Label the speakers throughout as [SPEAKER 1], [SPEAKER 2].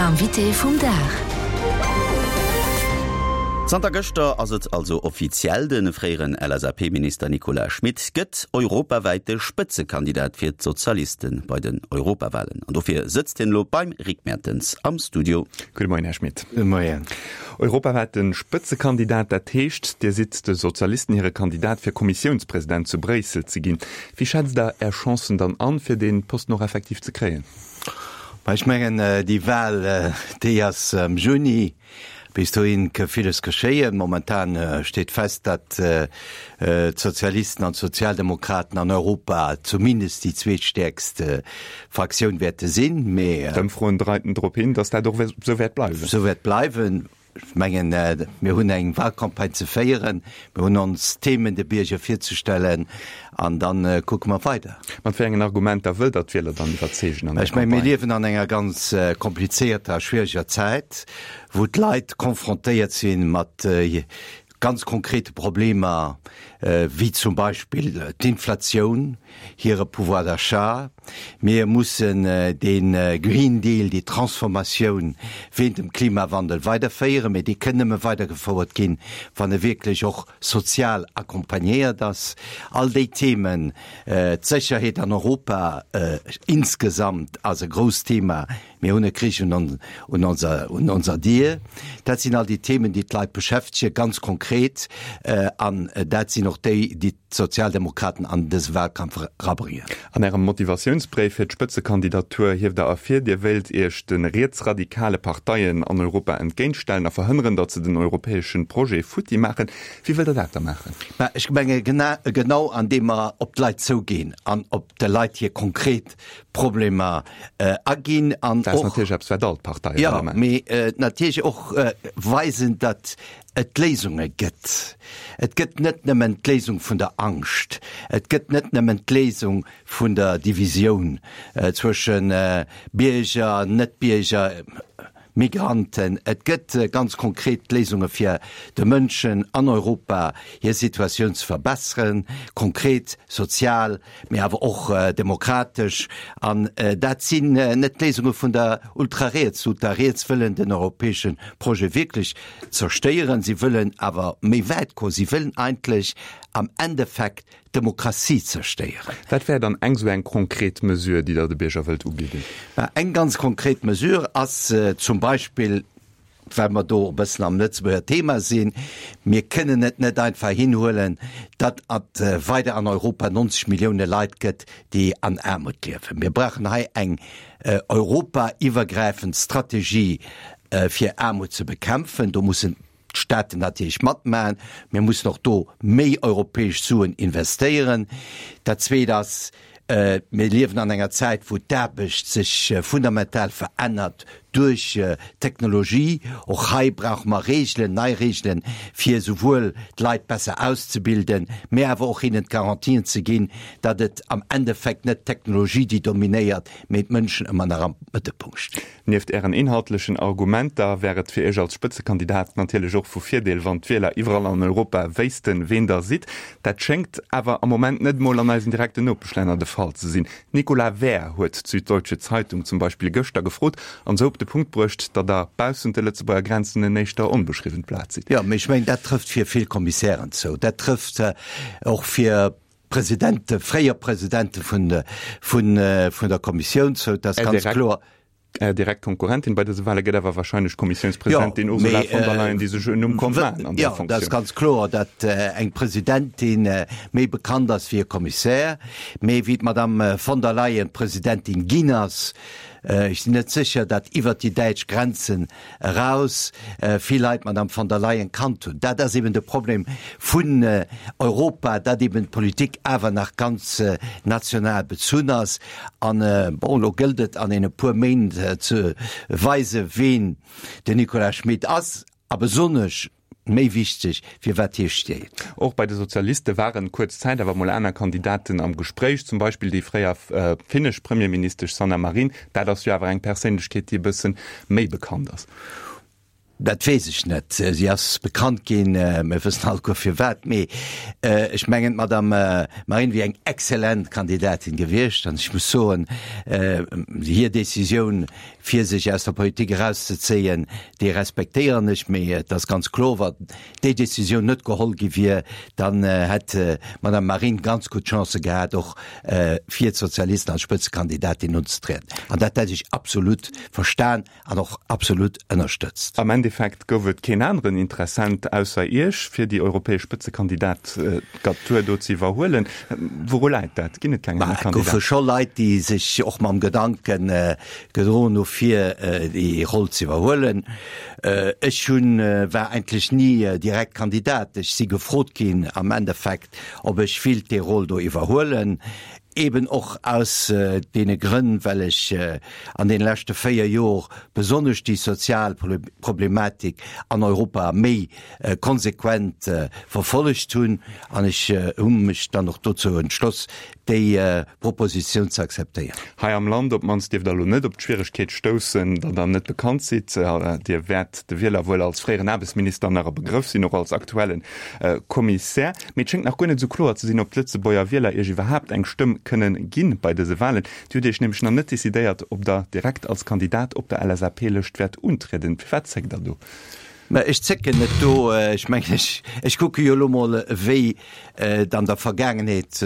[SPEAKER 1] Invité vum Dag.
[SPEAKER 2] Zanter gëschter ass et also offiziell, De fréieren LSAP-Minister Nicolas Schmit gëtt europawäite Spëtzekandidat fir d'Sozialiste bei den Europawalen. An dofir sëtzt hien elo beim Rick Mertens am Studio.
[SPEAKER 3] Gudde Moien, Här Schmit.
[SPEAKER 4] Gudde Moien.
[SPEAKER 3] Europawäite Spëtzekandidat, dat heescht, Dir sidd de Sozialisten hire Kandidat fir Kommissiounspresident zu Bréissel ze ginn. Wéi schätzt Der Är Chancen dann an, fir dee Posten och effektiv ze kréien?
[SPEAKER 4] Ma ech mengen, déi Wahl, déi ass am Juni. Bis dohin ka villes geschéien. Momentan steet fest, datt d'Sozialisten an d'Sozialdemokraten an Europa zumindest déi zweetstäerkst Fraktioun wäerte sinn.
[SPEAKER 3] Mee. D'Ëmfroen deiten drop hin, datt dat och esou wäert bleiwen.
[SPEAKER 4] Esou wäert bleiwen. Ech mengen, mir hunn eng Wahlcampagne ze féieren, mir hunn ons Themen de Bierger virzestellen an da kucke mer weider.
[SPEAKER 3] Mat wéi engen Argumenter wëllt Der d'Wieler dann iwwerzeegen
[SPEAKER 4] an der Campagne? Ech mengen, mir liewen an enger ganz komplizierter a schwiereger Zäit, wou d'Leit confrontéiert si mat ganz konkrete Problemer, wéi zum Beispill d'Inflatioun, hire Pouvoir d'achat. Mir mussen dee Green Deal, déi Transformatioun wéint dem Klimawandel weiderféieren, mee déi kënn nëmme weidergefouert ginn, wann e wierklech och sozial accompagnéiert ass. All déi Themen, d'Sécherheet an Europa insgesamt ass e grousst Thema, Mir hunn e Krich un onser Dier. Dat sinn all déi Themen, déi d'Leit beschäftegen, ganz konkret. An dat sinn och déi, déi d'Sozialdemokraten an dëse Wahlkampf erabréngen.
[SPEAKER 3] An Ärem Motivatiounsbréif fir d'Spëtzekandidatur hieft Der ervir, Dir wéilt Iech de rietsradikale Parteien an Europa entgéintstellen a verhënneren, datt se den europäesche Projet futti maachen. Wéi wëllt Der dat da maachen?
[SPEAKER 4] Mä ech menge genau andeem mer op d'Leit zouginn an op de Leit hir konkret Problemer aginn
[SPEAKER 3] an och. Dat ass natierlech eppes, wat all d'Parteie
[SPEAKER 4] wëlle maachen. Jo, mee natierlech och weisen, datt et Léisunge gëtt. Et gëtt net nëmmen d'Léisung vun der Angscht, et gëtt net nëmmen d'Léisung vun der Divisioun zwësche Bierger, Net-Bierger, Migranten. Et gëtt ganz konkret Léisunge fir de Mënschen an Europa hir Situatioun ze verbesseren, konkret, sozial, mee awer och demokratesch. An dat sinn net d'Léisunge vun der Ultrariets. D'Ultrariets wëllen den europäesche Projet wierklech zerstéieren. Si wëllen awer méi wäit goen. Si wëllen eigentlech am Endeffekt d'Demokratie zerstéieren.
[SPEAKER 3] Wat wär dann eng esou eng konkret Mesure, déi Der de Bierger wëllt ubidden?
[SPEAKER 4] Mä eng ganz konkret Mesure ass zum Beispill, well mer do e bëssen am Lëtzebuerger Thema sinn, Mir kënnen et net einfach hinhuelen, datt et weider an Europa 90 Millioune Leit gëtt, déi an Aarmut liewen. Mir brauchen hei eng europaiwwergräifend Strategie, fir Aarmut ze bekämpfen. Do mussen d'Staaten natierlech matmachen. Mir mussen och do méi europäesch Suen investéieren. Dat Zweet ass, mir liewen an enger Zäit, wou d'Aarbecht sech fundamental verännert duerch d'Technologie. Och hei brauche mer Regeln, nei Regeln, fir esouwuel d'Leit besser auszebilden, mä awer och hinnen d'Garantien ze ginn, datt et am Endeffekt net d'Technologie, déi dominéiert, mä d'Mënschen ëmmer nach am Mëttelpunkt stinn.
[SPEAKER 3] Nieft Ären inhaltlechen Argumenter wär et fir Iech als Spëtzekandidat natierlech och vu Virdeel, wann d'Wieler iwwerall an Europa wéissten, ween Der sidd. Dat schéngt awer am Moment net emol an eisen direkten Nopeschlänner de Fall ze sinn. D'Nicola Wehr huet d'Süddeutsche Zeitung zum Beispill gëschter gefrot an esou op de Punkt bruecht, datt Der baussent de Lëtzebuerger Grenzen en éischter onbeschriwwent Blat sidd.
[SPEAKER 4] Jo, mee ech mengen, dat trëfft fir vill Kommissären zou. Dat trëfft och fir Presidente, fréier Presidente vun vun vun der Kommissioun zou, dat ass ganz kloer.
[SPEAKER 3] Är direkt Konkurrentin bei dëse Wahle gëtt awer wahrscheinlech d'Kommissiounspresidentin Ursula von der Leyen, déi sech en Numm konnt maachen an där
[SPEAKER 4] Funktioun. Jo, dat ass ganz kloer, datt eng Presidentin méi bekannt ass wéi e Kommissär. Mee wéi d'Madame von der Leyen Presidentin ginn ass, ech sinn net sécher, datt iwwert déi däitsch Grenzen eraus vill Leit d'Madame von der Leyen kannt hunn. Dat ass eben de Problem vun Europa, datt eben d'Politik awer nach ganz national bezunn ass. An, bon, elo gëllt et an deene puer Méint ze weisen, ween den Nicolas Schmit ass a besonnesch, méi wichteg, fir wat hie steet.
[SPEAKER 3] Och bei de Sozialiste waren kuerz Zäit awer mol aner Kandidaten am Gespréich, zum Beispill déi fréier finnesch Premierministesch Sanna Marin. Dat ass jo awer eng Perséinlechkeet, déi e bësse méi bekannt ass.
[SPEAKER 4] Dat weess ech net. Si ass bekannt ginn, mir wëssen alleguer firwat. Mee ech mengen, d'Madame Marine wier eng exzellent Kandidatin gewiescht. An ech muss soen, hir Decisioun, fir sech aus der Politik erauszezéien, déi respektéieren ech. Mee et ass ganz kloer, wa déi Decisioun net geholl gi wier, dann hätt d'Madame Marine ganz gutt Chancë gehat, och fir d'Sozialisten als Spëtzekandidatin unzetrieden. An dat hätt ech absolut verstan. An och absolut ënnerstëtzt.
[SPEAKER 3] Am Endeffekt gouf et keen aneren Interessent ausser Iech, fir déi europäesch Spëtzekandidatur do ze iwwerhuelen. Wouru läit dat? Ginn et keng aner
[SPEAKER 4] Kandidaten? Et goufe scho Leit, déi sech och mam Gedanke gedroen hu fir déi Roll ze iwwerhuelen. Ech hunn, war eigentlech ni direkt Kandidat. Ech si gefrot ginn am Endeffekt, ob ech willt déi Roll do iwwerhuelen. Eben och aus deene Grënn, well ech an deene leschte 4 Jor besonnesch déi sozial Problematik an Europa méi konsequent verfollegt hunn. An ech hu mech dann och dozou entschloss, déi Propositioun ze akzeptéieren.
[SPEAKER 3] Hei am Land op d'mannst dierft Der elo net op d'Schwieregkeet stoussen, datt Der net bekannt sidd. Dir wäert de Wieler wuel als fréieren Aarbechtsminister nach e Begrëff sinn, och als aktuelle Kommissär. Mee et schéngt nach guer net esou kloer ze sinn, ob d'Lëtzebuerger Wieler Iech iwwerhaapt eng Stëmm kënnen ginn bei dëse Walen. Dir hutt Iech nämlech nach net decidéiert, ob Der direkt als Kandidat op der LSAP-Lëscht wäert untrieden. Firwat zéckt Der do?
[SPEAKER 4] Mä ech zécken net do. Ech mengen, ech, ech kucke jo elo mol, wéi et an der Vergaangenheet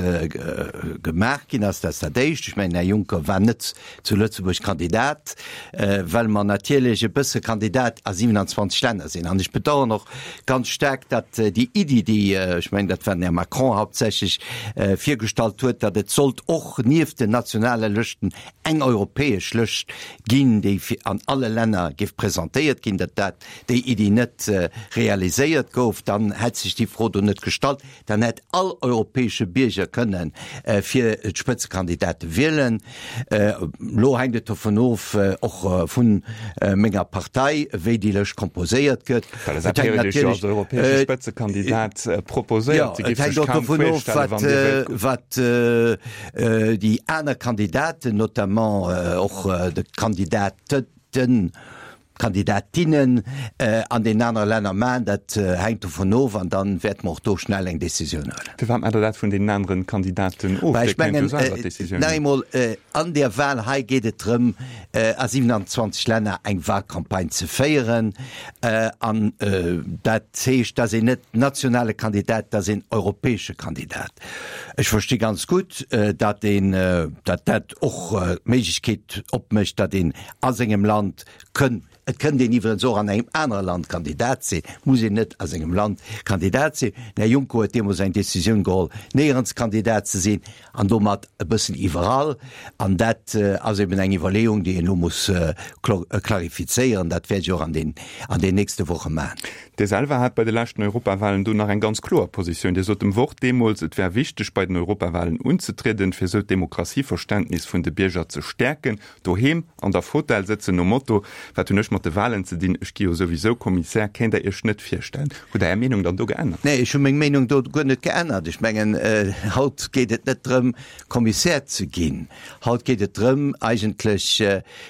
[SPEAKER 4] gemaach ginn ass. Dat ass dat Éischt. Ech mengen, Här Juncker war net zu Lëtzebuerg Kandidat, well mer natierlech e bësse Kandidat a 27 Länner sinn. An ech bedauern och ganz staark, datt déi Iddi, déi, ech mengen, dat war den Här Macron hauptsächlech, virgestallt huet, datt et sollt och nieft den nationale Lëschten eng europäesch Lëscht ginn, déi an alle Länner géif presentéiert ginn, datt dat, déi Iddi net realiséiert gouf. Dann hätt sech déi Fro do net gestallt. Dann hätt all europäesche Bierger kënne fir d'Spëtzekandidate wielen. Elo hänkt et dovun of, och vu menger Partei, wéi déi Lëscht komposéiert gëtt.
[SPEAKER 3] Et hänkt natierlech als europäesche Spëtzekandidat proposéiert.
[SPEAKER 4] Jo, et hänkt och dovun of, wat déi aner Kandidaten, notamment och de Kandidaten, Kandidatinnen an deenen anere Länner maachen. Dat hänkt dovun of an da wäerte mer och do schnell eng Décisioun huelen.
[SPEAKER 3] Firwat maacht Der dat vun deenen aneren Kandidaten of?
[SPEAKER 4] Well ech mengen, nach eemol, an där Wahl hei geet et drëm, a 27 Länner eng Wahlcampagne ze féieren. An dat heescht, dass een net nationale Kandidat, dass een europäesche Kandidat. Ech versti ganz gutt, datt een, datt dat och d'Méiglechkeet opmécht, datt een a sengem Land kënn, et kënnt een iwwerens och an engem anere Land Kandidat sinn, muss een net a sengem Land Kandidat sinn. Den Här Juncker huet deemools eng Décisioun geholl, néierens Kandidat ze sinn an domat e bëssen iwwerall. An dat ass eben eng Iwwerleeung, déi een elo muss klarifizéieren. Dat wäert ech och an den, an den nächste Woche maachen.
[SPEAKER 3] Dir selwer hat bei de leschten Europawahlen do nach eng ganz kloer Positioun. Dir sot dem Wort deemools, et wär wichteg, bei den Europawahlen unzetrieden, fir esou d'Demokratieverständnis vun de Bierger ze stäerken. Doheem an der Fotell sëtzen nom Motto, Wat hunn ech mat de Wahlen ze dinn, ech gi jo souwisou Kommissär, kéint Der Iech net virstellen. Hutt Der Är Meenung dann do geännert?
[SPEAKER 4] Nee, ech hu meng Meenung do guer net geännert. Ech mengen, haut geet et net drëm, Kommissär ze ginn. Haut geet et drëm, eigentlech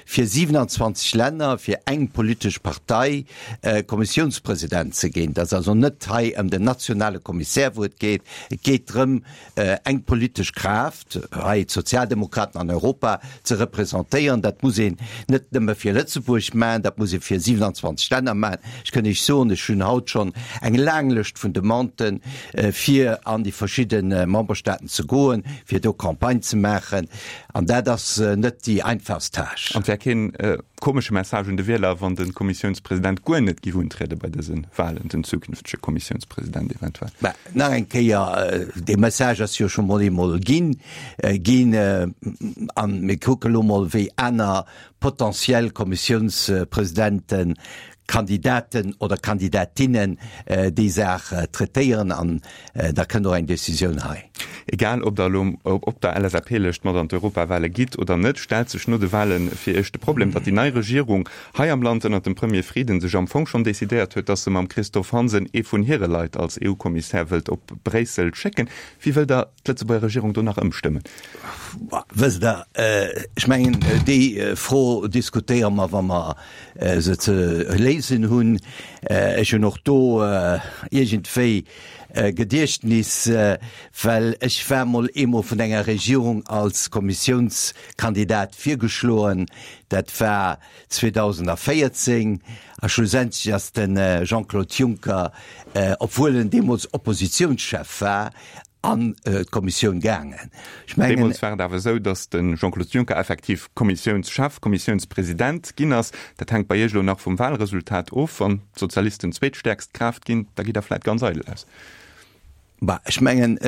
[SPEAKER 4] fir 27 Länner, fir eng politesch Partei Kommissiounspresident ze ginn. Et ass also net hei ëm den nationale Kommissär, wou et geet. Et geet drëm, eng politesch Kraaft, hei d'Sozialdemokraten an Europa, ze representéieren. Dat muss een net nëmme fir Lëtzebuerg maachen, dat muss ee fir 27 Länner maachen. Ech kënn Iech soen, ech hunn haut schonn eng laang Lëscht vun Demanden, fir an déi verschidde Memberstaaten ze goen, fir do Campagne ze maachen. An dat ass net déi einfachst Tâche.
[SPEAKER 3] An et wär keen komesche Message un de Wieler, wann de Kommissiounspresident guer net giff untriede bei dëse Wahlen, den zukünftege Kommissiounspresident eventuell?
[SPEAKER 4] Mä nach eng Kéier, dee Message ass jo scho mol eemol ginn, ginn. A mir kucke lo mol, wéi aner potentiell Kommissiounspresidenten, Kandidaten oder Kandidatinnen déi Saach traitéieren an da kënnt och eng Decisioun hei.
[SPEAKER 3] Egal ob der elo op der LSAP-Lëscht mat an d'Europawale gitt oder net, stellt sech no de Wale fir Iech de Problem, datt déi nei Regierung hei am Land ënnert dem Premier Frieden sech am Fong schonn decidéiert huet, datt se mam Christophe Hansen ee vun hire Leit als EU-Kommissär wëllt op Bréissel schécken. Wéi wëllt Der d'Lëtzebuerger Regierung do nach ëmstëmmen?
[SPEAKER 4] Wësst Der, ech mengen, déi Fro diskutéiere mer, wa mer se ze léisen hunn. Ech hunn och do iergendwéi e Gediechtnis, well ech war mol eemol vun enger Regierung als Kommissiounskandidat virgeschloen. Dat war 2014 a schlussendlech ass de Jean-Claude Juncker, obwuel en deemools Oppositionschef war, an d'Kommissioun gaangen.
[SPEAKER 3] Ech mengen. Deemools war et awer esou, datt de Jean-Claude Juncker effektiv Kommissiounschef, Kommissiounspresident ginn ass. Dat hänkt bei Iech elo nach vum Wahlresultat of. Wann d'Sozialisten zweetstäerkst Kraaft ginn, da gitt Der vläit ganz eidel aus.
[SPEAKER 4] Bah, ech mengen,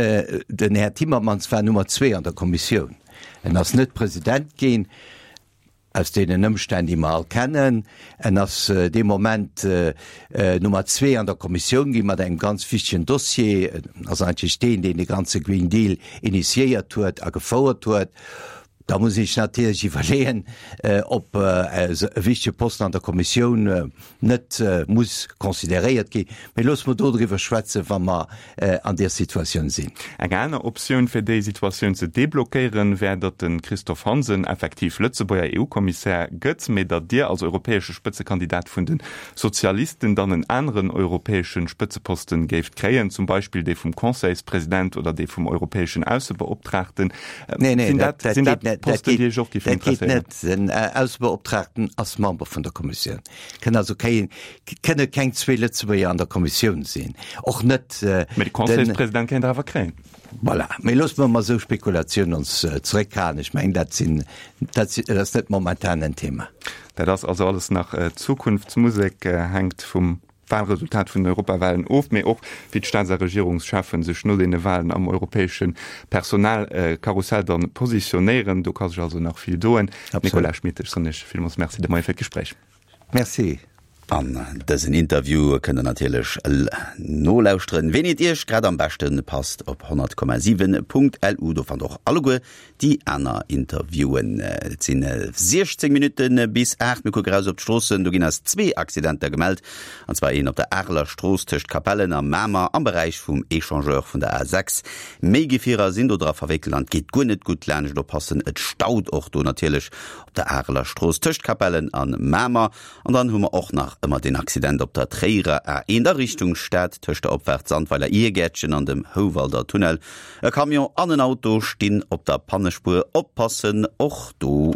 [SPEAKER 4] den Här Timmermans war Nummer zwee an der Kommissioun. En ass net President ginn. Aus deenen Ëmstänn, déi mer all kennen. En ass dee Moment Nummer zwee an der Kommissioun gi mat engem ganz wichtegen Dossier. En ass eigentlech deen, deen de ganze Green Deal initiéiert huet a gefouert huet. Da muss ee sech natierlech iwwerleeën, ob e wichtege Posten an der Kommissioun net muss consideréiert ginn. Mee loosse mer dodriwwer schwätzen, wa mer an där Situatioun sinn.
[SPEAKER 3] Eng aner Optioun, fir déi Situatioun ze deblockéieren, wär, datt de Christophe Hansen effektiv Lëtzebuerger EU-Kommissär gëtt, mee datt Dir als europäesche Spëtzekandidat vun de Sozialisten dann en aneren europäesche Spëtzeposten géift kréien, zum Beispill dee vum Conseilspresident oder dee vum europäeschen Aussebeoptraagten.
[SPEAKER 4] Sinn dat Posten, déi Iech och géifen interesséieren? Den Aussebeoptraagten ass Member vun der Kommissioun. Kënn also keng, kënne keng zwee Lëtzebuerger an der Kommissioun sinn. Och net.
[SPEAKER 3] Mee de Conseilspresident kéint Der awer kréien.
[SPEAKER 4] Voilà. Mee loosse mer mat esou Spekulatiounen ons zeréckhalen. Ech mengen, dat sinn, dat sinn, dat ass net momentan en Thema.
[SPEAKER 3] Dat ass also alles nach Zukunftsmusek, hänkt vum Wahlresultat vun den Europawahlen of, mee och wéi d'Staats a Regierungscheffen sech no deene Wahlen am europäesche Personalkarussell dann positionéieren. Do ka sech also nach vill doen. Nicolas Schmit, ech soen Iech villmools Merci de Moie fir d'Gespréich.
[SPEAKER 4] Merci.
[SPEAKER 2] An dësen Interview kënnt der natierlech nolauschteren, ween et Iech grad am beschte passt op 100,7.lu. Do fannt och alleguer Déi aner Interviewen. Et sinn 16 Minutte bis 8. Mir kucke raus op d'Stroossen. Do ginn eis zwee Accidenter gemellt. An zwar een op der Areler Strooss tëscht Capellen a Mamer am Beräich vum Echangeur vun der A6. Méi Gefierer sinn do dra verwéckelt an et geet guer net gutt laanscht. Oppassen, et staut och do natierlech op der Areler Strooss tëscht Capellen a Mamer. An dann hu mer och nach ëmmer deen Accident op der Tréierer A1 a Richtung Stad tëscht der Opfaart Sandweiler Irgäertchen an dem Houwalder Tunnel. E Camion an en Auto stinn op der Pannespuer, oppassen och do.